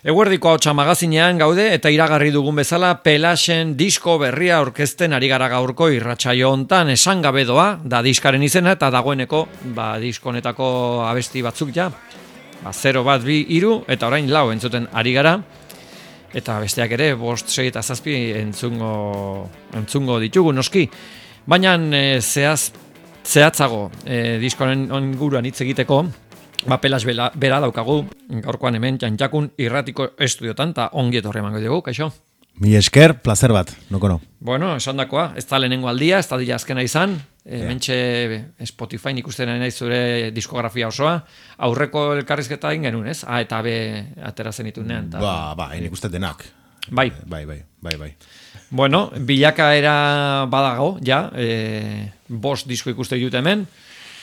Eguerdiko Ahotsa magazinean gaude eta iragarri dugun bezala Pelasen disko berria aurkezten ari gara gaurko irratsaio hontan. Esan gabe doa da diskaren izena eta dagoeneko disko honetako abesti batzuk ja 0, 1, 2, 3 eta orain 4 entzuten ari gara. Eta besteak ere 5, 6 eta 7 entzungo ditugu noski. Baina zehatzago diskoaren inguruan hitz egiteko Pelas bera daukagu, gaurkoan hemen Jantjakun irratiko estudiotan, eta ongi etorri emango dugu, kaixo? Mi esker, placer bat, noko no. Bueno, esan dakoa, ez da lehenengo aldia, ez da dira azkena izan, mentxe Spotify ikusten nahi zure diskografia osoa, aurreko elkarrizketa egin genuen, ez? A eta B atera zenitunean. Nik uste denak. Bai. Bueno, bilakaera badago, ja, 5 disko ikuste ditut hemen,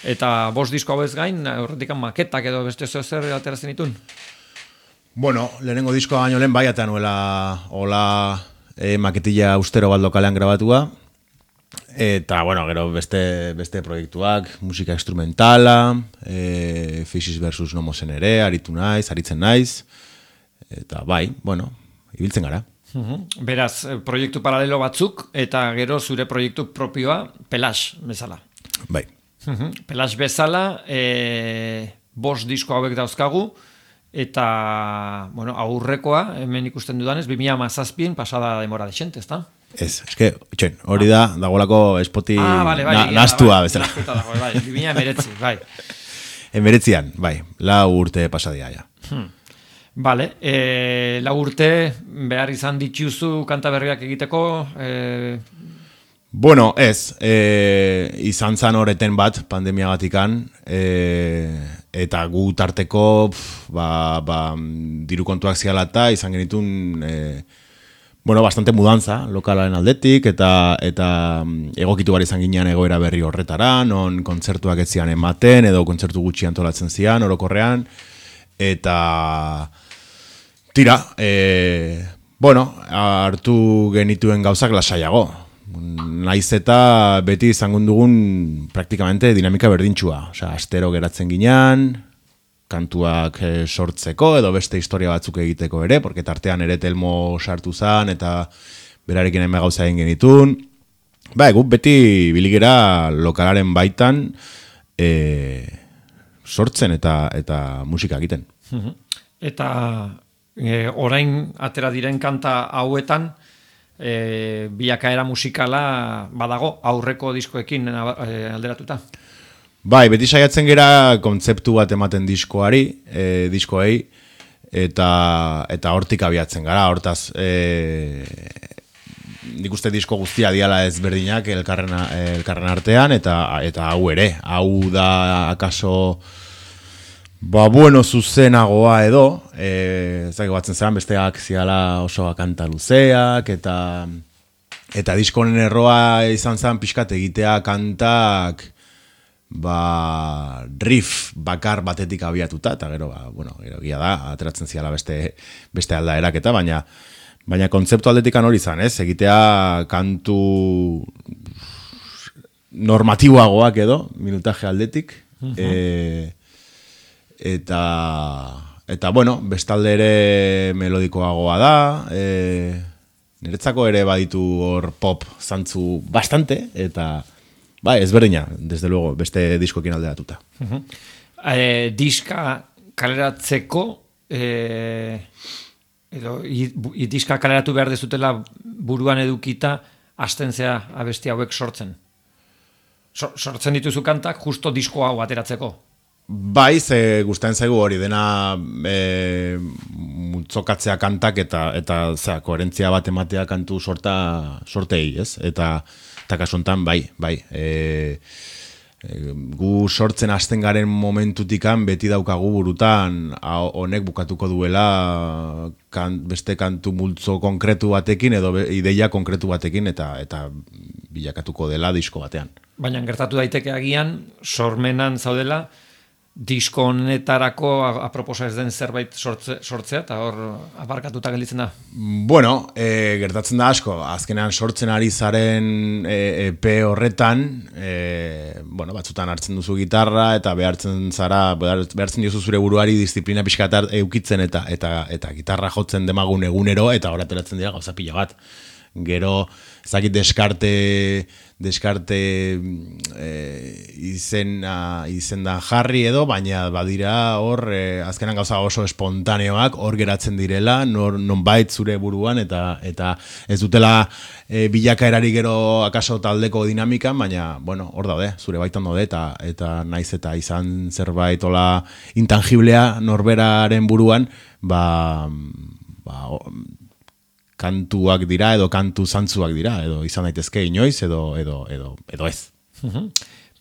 eta 5 disko hau ez gain, horretik maketak edo beste zer ateratzen ditun? Bueno, lehenengo diskoa baino lehen eta nuela hola maketilla austero bat lokalean grabatua. Eta, bueno, gero beste proiektuak, musika instrumentala, Faces vs. Nomosen ere, aritzen naiz. Eta ibiltzen gara. Beraz, proiektu paralelo batzuk, eta gero zure proiektu propioa, Pelas bezala. Bai. Pelas bezala, 5 disko hauek dauzkagu, eta aurrekoa, hemen ikusten dudanez, 2017 pasada demora dexente, ezta? Ez, hori dagoelako espoti nastua bezala. Nastuta dago, 2019, bai. Emeretzian, bai, 4 urte pasadia, ja. Vale, 4 urte behar izan dituzu kanta berriak egiteko, Bueno, ez, izan zan horreten bat pandemia batikan, eta gu tarteko diru kontuak ziala eta izan genitun bastante mudanza lokalaren aldetik, eta egokitu gara izan ginean egoera berri horretara, non kontzertuak ez zian ematen, edo kontzertu gutxi antolatzen zian, orokorrean, eta tira, hartu genituen gauzak lasaiago. Naiz eta beti izango dugun praktikamente dinamika berdintxua. Astero geratzen ginean, kantuak sortzeko edo beste historia batzuk egiteko ere, porque tartean ere Telmo sartu zan eta berarekin hainbat gauza egin genitun. Guk beti biligera lokalaren baitan sortzen eta musika egiten. Eta orain atera diren kanta hauetan, bilakaera musikala badago aurreko diskoekin alderatuta. Beti saiatzen gera kontzeptu bat ematen diskoei, eta hortik abiatzen gara, hortaz nik uste disko guztia diala ezberdinak elkarren artean, eta hau ere, hau da akaso zuzenagoa edo, zaigo batzen zelan, besteak ziala oso kanta luzeak, eta diskonen erroa izan zen pixkat egitea kantak riff bakar batetik abiatuta, eta gero gira da, ateratzen ziala beste aldaerak eta, baina kontzeptu aldetikan hori izan, egitea kantu normatiboagoak edo, minutaje aldetik, Eta bestalde ere melodikoagoa da, niretzako ere baditu hor pop zantzu bastante, eta ezberdina, desde luego, beste diskoekin alderatuta. Diska kaleratzeko, edo diska kaleratu behar dezutela buruan edukita, hasten zea abesti hauek sortzen. Sortzen dituzu kantak, justo disko hau ateratzeko. Ze gustatzen zaigu hori dena multzokatzea kantak eta koherentzia bat ematea kantu sortei, ez? Eta kasuntan, gu sortzen hasten garen momentutikan beti daukagu burutan honek bukatuko duela beste kantu multzo konkretu batekin edo ideia konkretu batekin eta bilakatuko dela disko batean. Baina gertatu daiteke agian, sormenan zaudela, disko honetarako aproposa ez den zerbait sortzea, eta hor abarkatuta gelditzen da. Bueno, gertatzen da asko, azkenean sortzen ari zaren EP horretan, bueno, batzutan hartzen duzu gitarra, eta behartzen diozu zure buruari disiplina pixka eukitzen, eta gitarra jotzen demagun egunero, eta hor ateratzen dira gauza pila bat. Gero, ezakit deskarte izendan jarri edo, baina badira hor, azkenan gauza oso espontaneoak hor geratzen direla, nonbait zure buruan, eta ez dutela bilakaerari gero akaso taldeko dinamikan, baina, bueno, hor daude, zure baitan daude, eta naiz eta izan zerbait ola intangiblea norberaren buruan, kantuak dira edo kantu zantzuak dira, edo izan daitezke inoiz edo ez.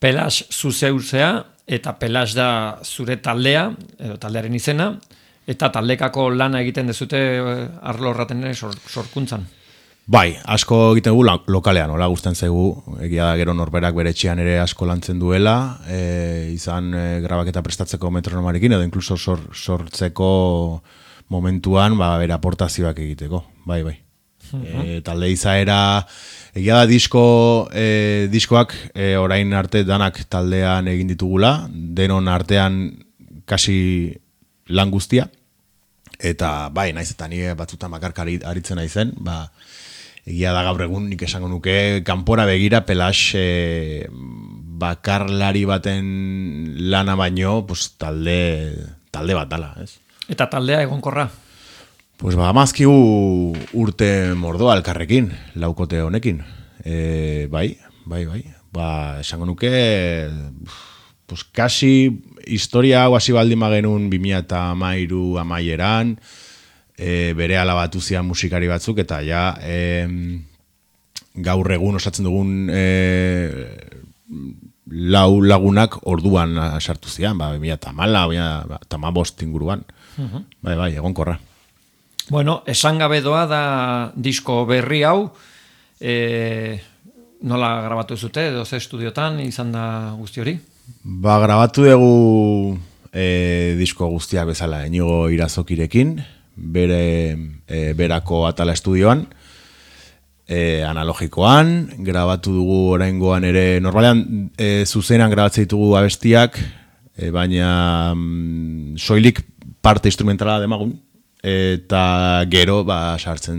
Pelas zuzeuzea, eta Pelas da zure taldea, edo taldearen izena, eta taldekako lana egiten dezute arlo horraten ere sorkuntzan. Bai, asko egiten dugu lokalean, hola gustatzen zaigu, egia da gero norberak bere etxean ere asko lantzen duela, izan grabaketa prestatzeko metronomarekin, edo inkluso sortzeko momentuan, bere aportazioak egiteko, bai. Talde izaera, egia da diskoak orain arte danak taldean egin ditugula, denon artean kasi lan guztia, eta bai, naiz eta nire batzutan bakarka aritzen naizen, egia da gaur egun nik esango nuke kanpora begira Pelas bakarlari baten lana baino, talde bat dala, ez? Eta taldea egonkorra? Pues amazkigu urte mordoa elkarrekin, laukote honekin. Bai. Esango nuke, pues kasi historia hau hasi baldin bagenun 2013 amaieran, bere alabatu zian musikari batzuk, eta ja gaur egun osatzen dugun lau lagunak orduan sartu zian, 2015 inguruan. Bai, egonkorra. Bueno, esan gabe doa da disko berri hau, nola grabatu zute, edo ze estudiotan izan da guzti hori? Grabatu dugu disko guztiak bezala, Inigo Irazokirekin, berako Atala estudioan, analogikoan, grabatu dugu oraingoan ere, normalean zuzenan grabatzen ditugu abestiak, baina soilik parte instrumentala demagun, eta gero sartzen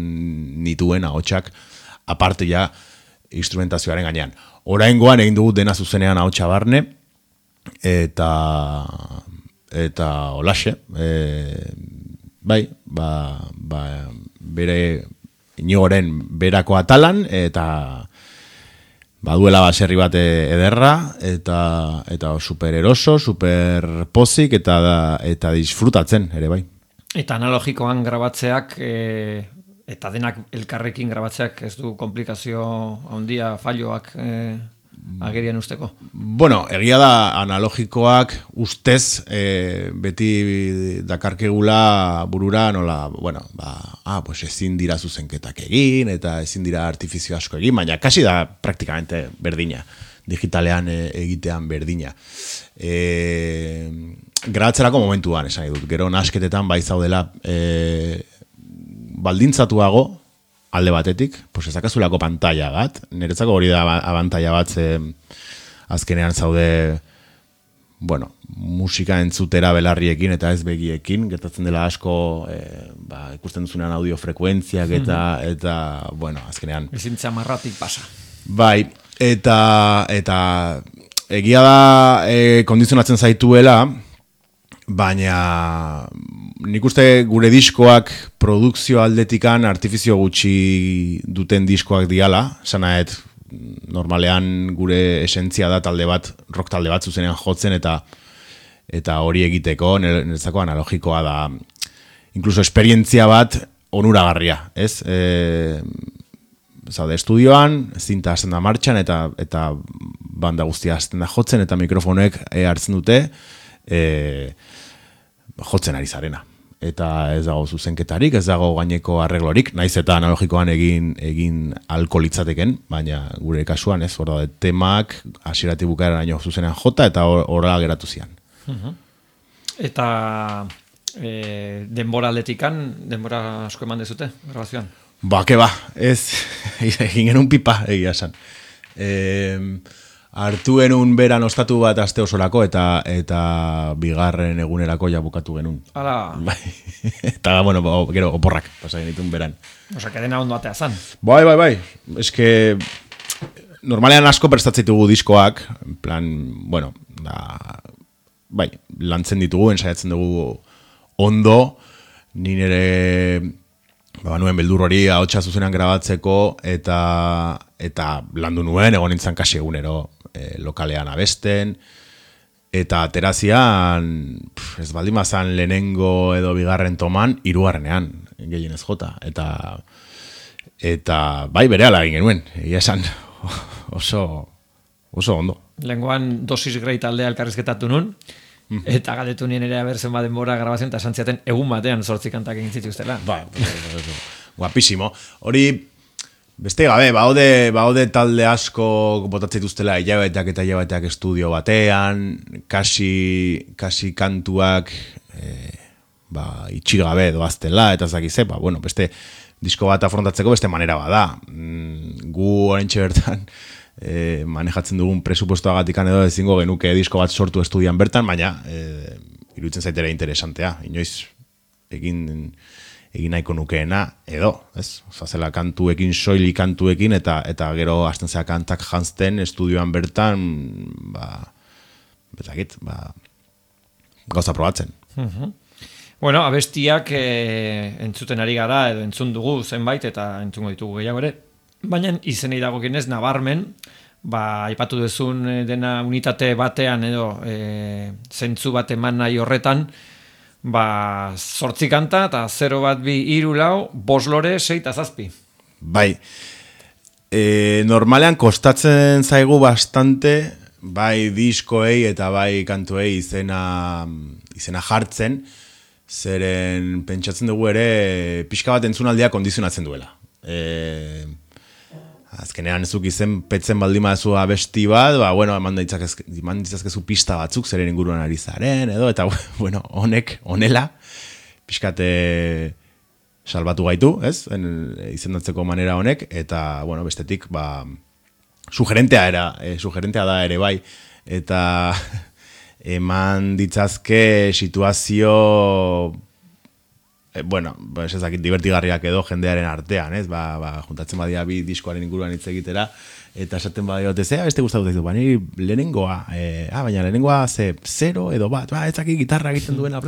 nituen ahotsak aparte ja instrumentazioaren gainean. Oraingoan egin dugu dena zuzenean ahotsa barne, eta holaxe, bai, bere Inigoren berako Atalan, eta baduela baserri bat ederra, eta super eroso, super pozik, eta disfrutatzen ere bai. Eta analogikoan grabatzeak, eta denak elkarrekin grabatzeak ez du komplikazio handia falloak agerian usteko? Bueno, egia da analogikoak ustez beti dakarkegula burura nola, bueno, pues ezin dira zuzenketak egin, eta ezin dira artifizio asko egin, baina kasi da praktikamente berdina, digitalean egitean berdina. Grabatzerako momentuan, esan dut, gero nasketetan bai zaudela baldintzatuago, alde batetik, pues ezakazulako pantalla bat, niretzako hori da abantaila bat, azkenean zaude, bueno, musika entzutera belarriekin eta ez begiekin, gertatzen dela asko, ikusten duzunean audio frekuentziak eta bueno, azkenean. Ezintza marratik pasa. Bai, eta egia da kondizionatzen zaituela, baina nik uste gure diskoak produkzio aldetikan artifizio gutxi duten diskoak diala, sanaet normalean gure esentzia da talde bat, rock talde bat zuzenean jotzen eta hori egiteko, niretzako analogikoa da, inkluso esperientzia bat onuragarria, ez? Zaude estudioan, zinta hasten da martxan eta banda guztia hasten da jotzen eta mikrofonek hartzen dute jotzen ari zarena. Eta ez dago zuzenketarik, ez dago gaineko arreglorik, naiz eta analogikoan egin alko litzateken, baina gure kasuan ez, hor da, temak hasieratik bukaeraraino zuzenean jota eta horrela geratu zian. Eta denbora aldetikan, denbora asko eman dezute, grabazioan? Ba, ez, egin genuen pipa, egia esan. Hartu genuen beran ostatu bat aste osorako eta bigarren egunerako ja bukatu genuen. Hala. Bai. Eta, bueno, gero oporrak pasa genituen beran. Osa, kedena ondo atea zan. Bai. Eske, normalean asko prestatzitugu diskoak, en plan, bueno, bai, lantzen ditugu, ensaiatzen dugu ondo, ni nire nuen beldur hori ahotsa zuzenean grabatzeko eta landu nuen, egon nintzen kasi egunero lokalean abesten, eta aterazian, ez baldin bazan lehenengo edo bigarren toman, hirugarrenean gehienez jota, eta bai berehala egin genuen, egia esan oso ondo. Lengoan dosis grei taldea elkarrizketatu nun, eta galdetu nien ere abertzen denbora grabazioan, eta santziaten egun batean 8 kantak egin zituztela. Guapísimo. Hori, beste gabe, baude talde asko botatzen dituztela hilabeteak estudio batean, kasi kantuak itxigabe doaztela, eta zakize, beste disko bat afrontatzeko beste manera bada. Gu oraintxe bertan manejatzen dugun presupuestoagatikan edo ezingo genuke disko bat sortu estudian bertan, baina iruditzen zaitera interesantea. Inoiz egin nahiko nukeena edo, ez? Zela kantuekin, soilik kantuekin, eta gero hasten zera kantak jantzten estudioan bertan, gauza probatzen. Bueno, abestiak entzuten ari gara edo entzun dugu zenbait eta entzungo ditugu gehiago ere. Baina izenei dagokienez nabarmen, aipatu duzun dena unitate batean edo zentzu bat eman nahi horretan, 8 kanta eta 0, 1, 2, 3, 4, 5 lore, 6 eta 7. Bai, normalean kostatzen zaigu bastante, bai diskoei eta bai kantuei izena jartzen, zeren pentsatzen dugu ere pixka bat entzunaldia kondizionatzen duela. Azkenean zuk izen petzen baldin baduzu abesti bat, eman ditzazkezu pista batzuk zeren inguruan ari zaren, edo, eta, honela, pixkate salbatu gaitu, ez? Izendatzeko manera honek, eta, bestetik, sugerentea da ere bai, eta eman ditzazke situazio ez dakit divertigarriak edo jendearen artean, ez? Juntatzen badia bi diskoaren inguruan hitz egitera, eta esaten badia beste gustatu zaizu, ni lehenengoa, baina lehenengoa 0 edo 1, ez dakit gitarra egiten duena,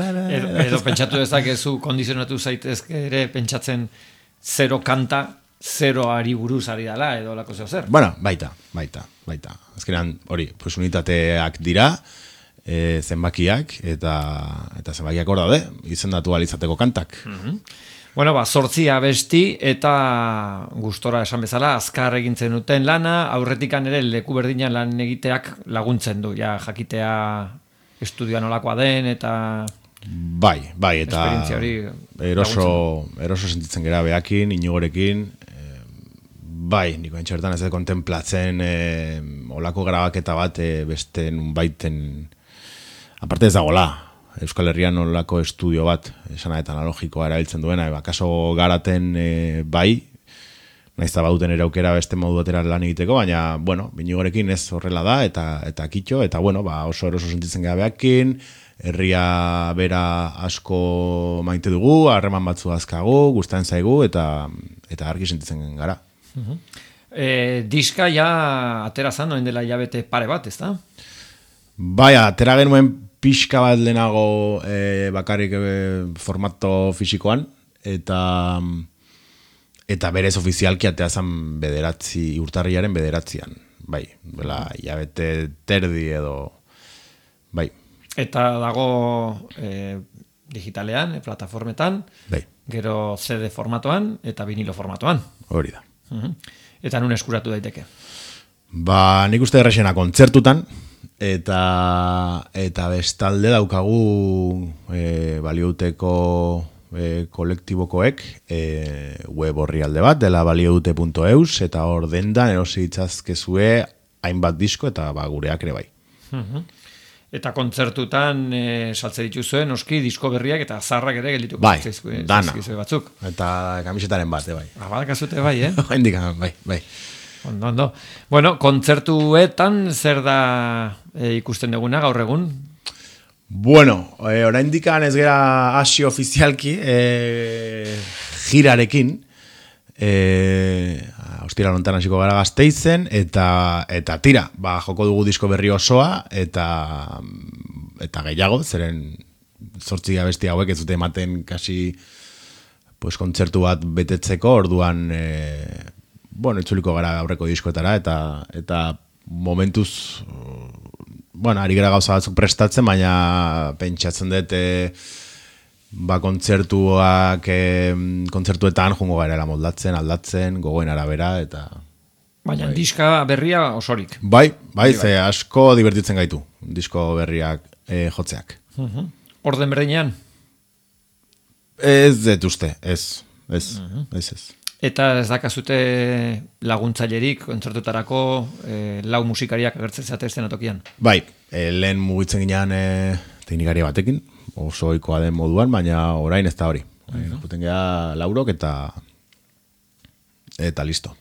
edo pentsatu dezakezu, kondizionatu zaitezke ere pentsatzen 0 kanta, 0 ari buruz ari dela, edo lako zeo zer. Baita. Azkenean, hori, unitateak dira, zenbakiak eta zenbakiak hor daude, izendatu alizateko kantak. 8 abesti eta gustora esan bezala azkar egintzen duten lana, aurretikan ere leku berdinan lan egiteak laguntzen du, jakitea estudioa nolakoa den eta bai, eta eroso sentitzen gera behakin, inigorekin, bai, niko entxertan ez kontemplatzen olako grabaketa bat beste nunbaiten aparte ez dagoela, Euskal Herrian olako estudio bat, esanaetan analogikoa erabiltzen duena, kaso garaten bai, naizta baduten ere aukera beste modu batera lan egiteko, baina, binigorekin ez horrela da, eta kitxo, eta oso eroso sentitzen gabeakin, herria bera asko maite dugu, harreman batzu azkagu, gustatzen zaigu, eta argi sentitzen gara. Diska ja atera zan, noen dela hilabete pare bat, ez da? Bai, atera genuen pixka bat lehenago bakarrik formato fisikoan, eta berez ofizialki atea zan urtarriaren 9. Bai, hilabete terdi edo, bai. Eta dago digitalean, plataformetan, bai. Gero CD formatoan eta vinilo formatoan. Hori da. Eta nun eskuratu daiteke? Nik uste errexena kontzertutan, eta bestalde daukagu baliouteko kolektibokoek web orrialde bat, dela balioute.eus, eta hor dendan erosi ditzazkezue hainbat disko eta gureak ere bai. Eta kontzertutan saltze dituzuen, noski, disko berriak eta zarrak ere geldituko. Bai, dana. Batzuk. Eta kamisetaren bat, bai. Badakazute bai, Hendik, bai. Ondo. Bueno, kontzertuetan zer da ikusten duguna gaur egun? Bueno, oraindik ez gera hasi ofizialki girarekin. Ostira lontan hasiko gara Gasteizen eta tira, joko dugu disko berri osoa eta gehiago, zeren 8 abesti hauek ez dute ematen kasi pues kontzertu bat betetzeko, orduan itzuliko gara aurreko diskoetara eta momentuz ari gara gauza batzuk prestatzen, baina pentsatzen dut kontzertuetan jungo garela moldatzen, aldatzen, gogoen arabera eta... Baina diska berria osorik. Bai, ze asko divertitzen gaitu, disko berriak jotzeak. Orden berdinean? Ez dut uste, ez. Eta ez dakazute laguntzailerik kontzertutarako lau musikariak agertzen zate eszenatokian? Bai, lehen mugitzen ginean teknikari batekin, oso ohikoa den moduan, baina orain ez da hori. Juten gea laurok eta listo.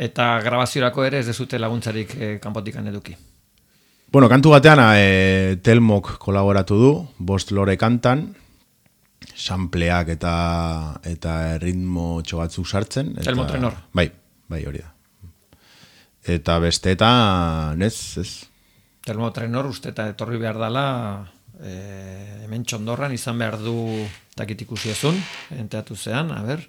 Eta grabaziorako ere ez dezute laguntzarik kanpotikan eduki? Bueno, kantu batean Telmok kolaboratu du, 5 lore kantan, sampleak eta ritmo txobatzuk sartzen. Telmo Trenor. Bai, hori da. Eta besteetan, ez. Telmo Trenor uste eta etorri behar dela hemen Txondorran izan behar du takit ikusiezun, enteatu zean, a ber.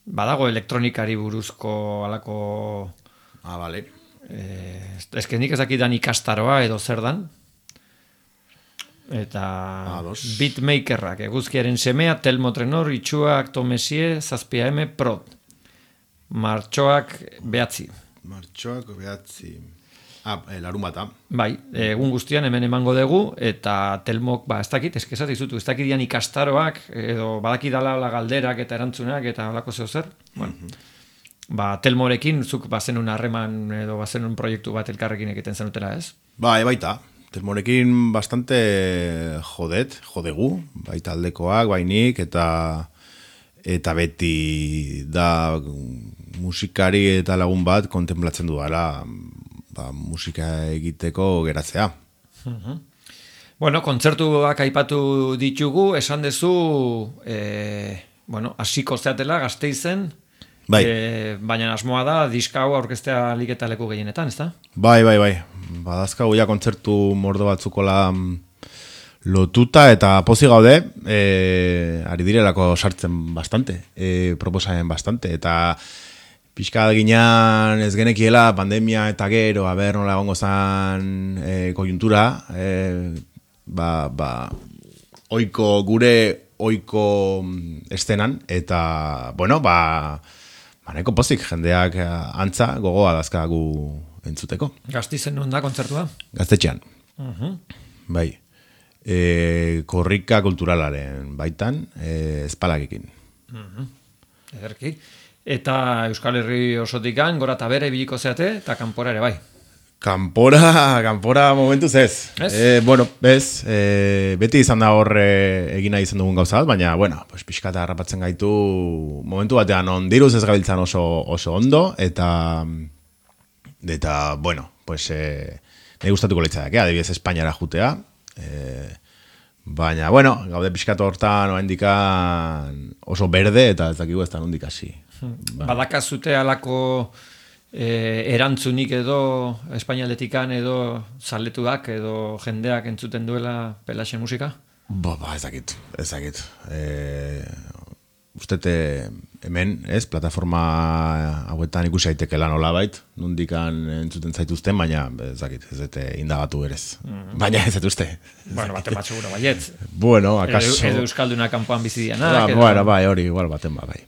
Badago elektronikari buruzko alako... Bale. Nik ez dakidan ikastaroa edo zer dan. Eta beatmakerrak, eguzkiaren semea, Telmo Trenor, itxuak Tomesie, 7M Prod. Martxoak 9. Larun bata. Bai, egun guztian hemen emango dugu, eta Telmok, ez dakit, eskesat izutu, ez dakit dian ikastaroak, edo badakidala galderak eta erantzunak, eta alako zeo zer. Telmorekin, zuk bazenun harreman, edo bazenun proiektu bat elkarrekin egiten zenutela, ez? Baita. Telmorekin bastante jodegu, baita aldekoak, bainik, eta beti da musikari eta lagun bat kontemplatzen duela musika egiteko geratzea. Bueno, kontzertuak aipatu ditugu, esan dezu, hasiko zeatela Gasteizen, baina asmoa da diska hau aurkeztea alik eta leku gehienetan, ez da? Bai. Badazkagu ja kontzertu mordo batzukola lotuta eta pozi gaude, ari direlako sartzen bastante, proposamen bastante, eta pixka ginean ez genekiela pandemia eta gero, nola egongo zan koiuntura, gure oiko estenan, eta, nahiko pozik, jendeak antza gogoa dazkagu entzuteko. Gasteizen non da kontzertua? Gaztetxean. Bai. Korrika kulturalaren baitan, espalakekin. Ederki. Eta Euskal Herri osotikan, gora eta bere biliko zeate, eta kanpora ere bai. Kanpora momentuz ez. Ez? Beti izan da hor egina izan dugun gauza bat, baina, pixkata harrapatzen gaitu momentu batean ondiruz ez gabiltzan oso ondo, eta nahi gustatuko leitzak, adibidez Espainiara jutea, baina, gaude pixkatu hortan oso berde, eta ez dakigu ez da nondik hasi. Badakazute alako erantzunik edo espainialetikan edo zaletuak edo jendeak entzuten duela Pelaxen musika? Ez dakit. Ustete hemen, plataforma hauetan ikusi aitekela nolabait, nondikan entzuten zaituzten, baina ez dakit, ez dute indagatu berez. Baina ez dut uste. Baten bat segura baiet. Akaso... Edo Euskalduna kanpoan bizidianak. Hori, igual baten bai.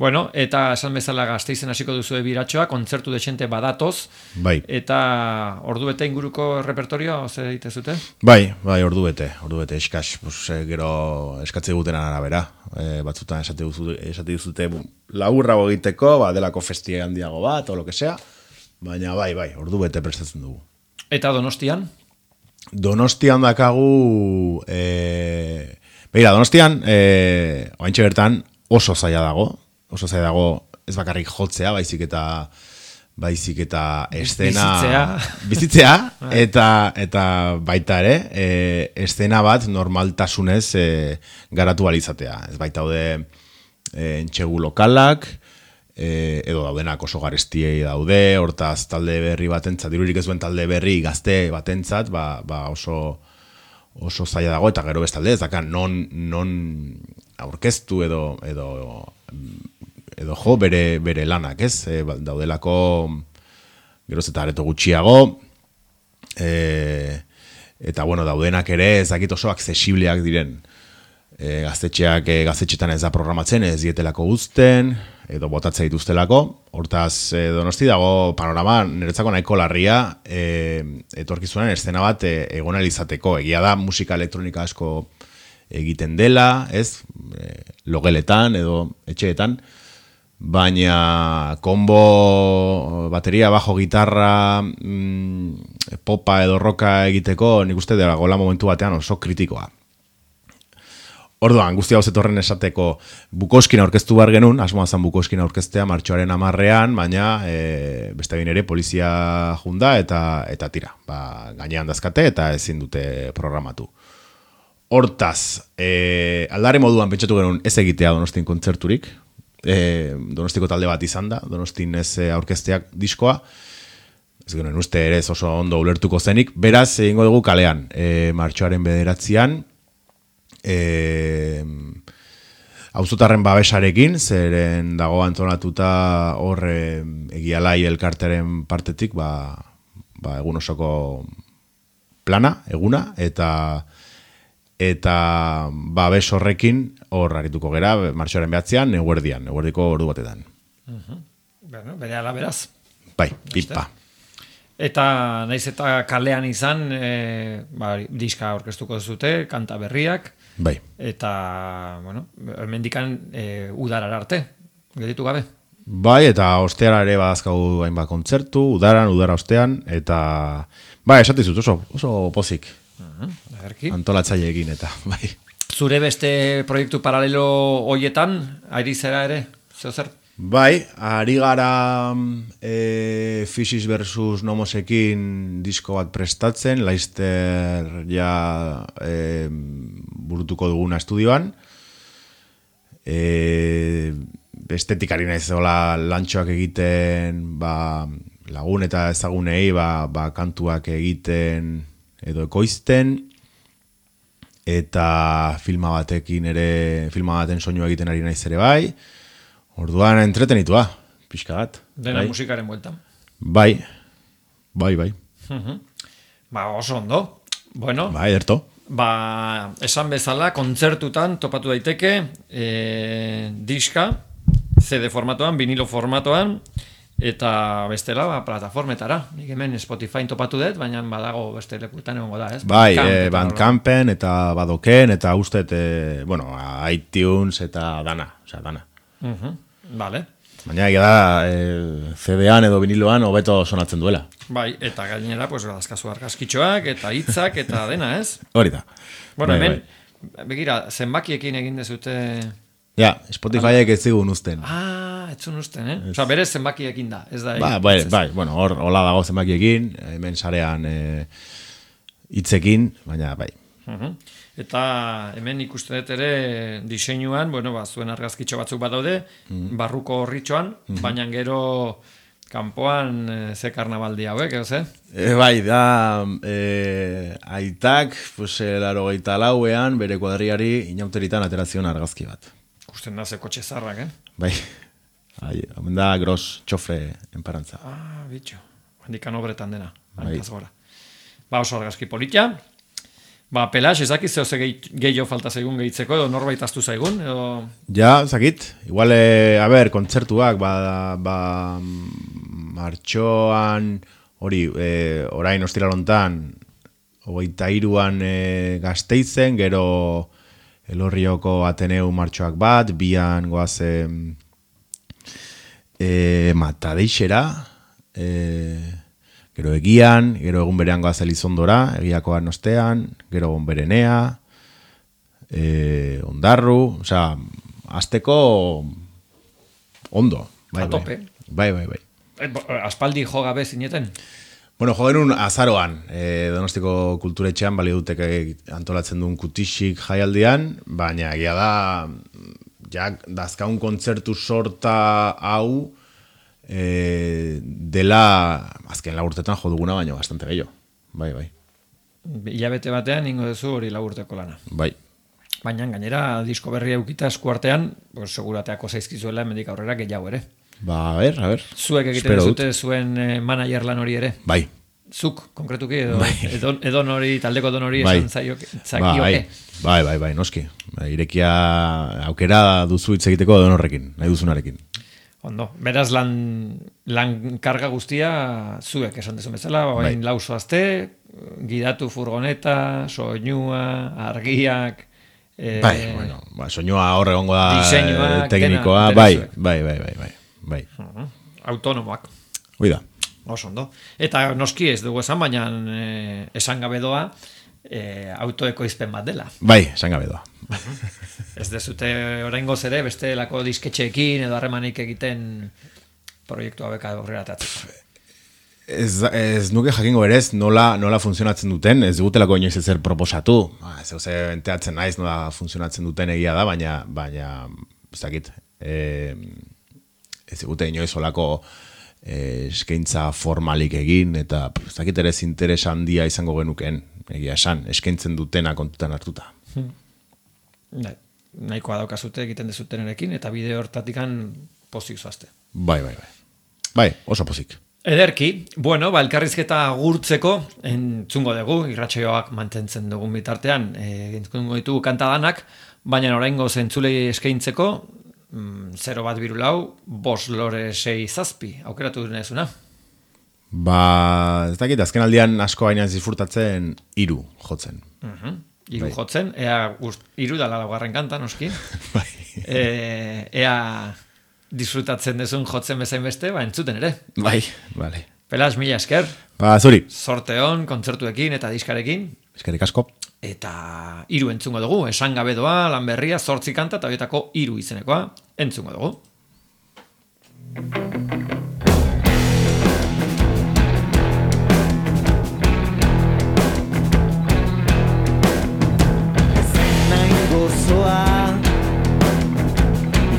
Bueno, eta esan bezala Gasteizen hasiko duzu biratxoa, kontzertu desente badatoz. Bai. Eta ordubete inguruko repertorioa, zer ditezute? Bai, ordubete, eskas, gero eskatze gutenan arabera. Batzutan esate duzute laburrago egiteko, delako festie handiago bat, o lo que sea. baina bai, ordu bete prestatzen dugu. Eta Donostian? Donostian dakagu, begira, Donostian, oaintxe bertan oso zaila dago, ez bakarrik jotzea, baizik eta estena... Bizitzea, eta baita ere, estena bat normaltasunez garatu alizatea. Ez baita entxegu lokalak, edo daudenak oso garestiei daude, hortaz talde berri batentzat, dirurik ez duen talde berri gazte batentzat, oso zaila dago, eta gero bestalde, ez daka non aurkeztu edo jo bere lanak, ez? Daudelako geroz eta areto gutxiago, eta bueno, daudenak ere ez dakit oso aksesibleak diren. Gaztetxetan ez da programatzen, ez dietelako guzten, edo botatzea dituztelako. Hortaz, Donosti dago panorama niretzako nahiko larria, etorkizunan eszena bat egon izateko. Egia da musika elektronika asko egiten dela, ez? Logeletan edo etxeetan, baina kombo, bateria, bajo, gitarra, popa edo roka egiteko, nik uste dagoela momentu batean oso kritikoa. Orduan, guzti hau zetorren esateko Bukowskina aurkeztu behar genuen, asmoa zan Bukowskina aurkeztea martxoaren 10ean, baina beste egin ere polizia junda eta tira. Gainean dazkate eta ezin dute programatu. Hortaz, aldare moduan pentsatu genuen ez egitea Donostin kontzerturik, Donostiko talde bat izan da, Donostin ez aurkezteak diskoa, ez genuen uste ere oso ondo ulertuko zenik, beraz egingo dugu kalean, martxoaren 9ean, auzotarren babesarekin, zeren dago antolatuta hor egialai elkarteren partetik egun osoko plana, eguna, eta babes horrekin hor arituko gera martxoaren 9ean, eguerdiko ordu batetan. Bueno, bere ala beraz. Bai, pipa. Eta naiz eta kalean izan, diska aurkeztuko zute, kanta berriak, bai. Eta, bueno, hemendikan udarar arte, gelditu gabe. Bai, eta osteara ere badazkagu hainbat kontzertu, udara ostean, eta, esatizut oso pozik. Antolatzaileekin eta, bai. Zure beste proiektu paralelo hoietan, ari zera ere, zer? Bai, ari gara Physis versus Nomosekin disko bat prestatzen, Laizter burutuko duguna estudioan. Estetikari naiz hola lantxoak egiten, lagun eta ezagunei kantuak egiten edo ekoizten, eta filma baten soinua egiten ari naiz ere bai. Orduan entretenitua, pixka bat. Dena musikaren bueltan. Bai. Oso ondo. Bueno. Bai, erto. Esan bezala, kontzertutan topatu daiteke diska, CD formatoan, vinilo formatoan, eta bestela, plataformetara. Nik hemen Spotify topatu dut, baina badago beste lekuetan egongo da, ez? Bai, Bandcampen eta Badoken, eta ustet, iTunes eta dana. Vale. Baina egia da CD-an edo viniloan hobeto sonatzen duela. Bai, eta gainera, dazkazu argazkitxoak eta hitzak eta dena, ez? Hori da. Bueno, hemen, begira, zenbakiekin egin dezute... Ja, Spotifyek ez zigun usten. Etzun usten, Osa, berez zenbakiekin da, ez da... Bai, bueno, hor hola dago zenbakiekin, hemen sarean hitzekin, baina bai. Eta hemen ikusten dut ere diseinuan, zuen argazkitxo batzuk badaude, barruko horritxoan, baina gero kanpoan ze karnabaldi hauek, edo Bai, da aitak, 84ean bere kuadriari inauteritan aterazion argazki bat. Ikusten da ze kotxe zarrak, Bai, hemen da gros txofre enparantza. Bitxo, handikan obretan dena, hankaz gora. Oso argazki politia. Pelax, ezakiz zehose gehiago falta zaigun gehitzeko, edo norbait aztu zaigun, edo... Ja, zakit. Igual, kontzertuak, martxoan, orain ostiralontan, 23an Gasteizen, gero Elorrioko Ateneu martxoak bat, bian goazen Matadeixera, gero egian, gero egun berean goaz Elizondora, egiakoan ostean, gero egun berenea, ondarru, osea, azteko ondo. A tope. Bai. Aspaldi jo gabe zineten? Bueno, jo genuen azaroan, Donostiko kulturetxean, balio dutek antolatzen duen kutixik jaialdian, baina egia da, ja, dazkaun kontzertu sorta hau, dela azken laburtetan jo duguna baino bastante gehiago. Bai. Hilabete batean ingo duzu hori laburteko lana. Bai. Baina gainera disko berria eukita eskuartean, pues, segurateako zaizkizuela hemendik aurrera gehiago ere. Ba, a ver. Zuek egiten duzute zuen manager lan hori ere. Bai. Zuk, konkretuki, edo, bai. edo nori, taldeko edo nori bai. esan zakioke. Bai, noski. Irekia aukera duzu hitz egiteko edo norrekin, nahi duzunarekin. Ondo, beraz lan karga guztia zuek esan dezu bezala, bain lauso azte, gidatu furgoneta, soinua, argiak, soinua hor egongo da diseinua, teknikoa, bai. Autonomoak. Hoi da. Oso ondo. Eta noski ez dugu esan, baina esan gabe doa autoekoizpen bat dela. Bai, esan gabe doa. Ez dezute oraingoz ere bestelako disketxeekin edo harremanik egiten proiektu hauek aurrera atatzeko. Ez nuke jakingo berez nola funtzionatzen duten, ez dugutelako inoiz ezer proposatu. Zeuze enteatzen naiz nola funtzionatzen duten egia da, baina ez dakit, ez dugute inoiz olako eskaintza formalik egin, eta ez dakit ere interes handia izango genuken, egia esan, eskaintzen dutena kontutan hartuta. Nahikoa daukazute egiten dezutenerekin, eta bideo hortatikan pozik zoazte. Bai, oso pozik. Ederki, bueno, elkarrizketa gurtzeko entzungo dugu, irratsaioak mantentzen dugun bitartean, entzungo ditugu kantadanak, baina oraingo zentzulei eskaintzeko, 0-1-2-4, 5 lore 6 zazpi, aukeratu dunezuna? Ba, ez dakit, azken aldian asko baina disfrutatzen 3 jotzen. 3 jotzen, ea 3 da laugarren kanta, noski. Bai. Ea disfrutatzen dezun jotzen bezain beste, entzuten ere. Bai, bale. Pelas, mila esker. Ba, zuri. Sorte hon, kontzertuekin eta diskarekin. Eskerrik asko. Eta 3 entzungo dugu, esan gabe doa, lan berria, 8 kanta, eta horietako 3 izenekoa, entzungo dugu. Nain gozoa,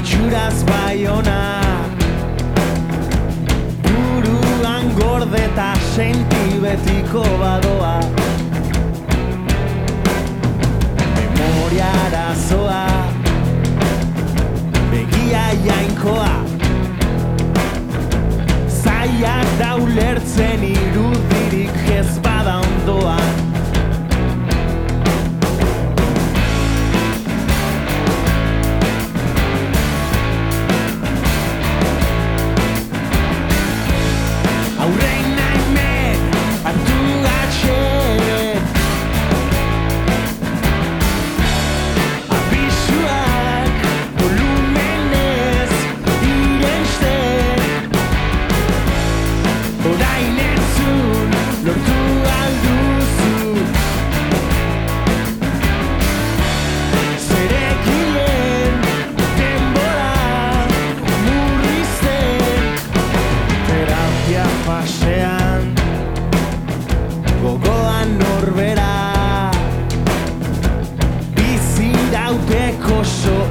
itxuraz baiona, buruan gordeta senti betiko badoa. Arazoa, begia jainkoa, zaiak da ulertzen irudirik ez bada ondoan. Aurrein naimen, hartu gatxen, gogoan norbera bizirauteko so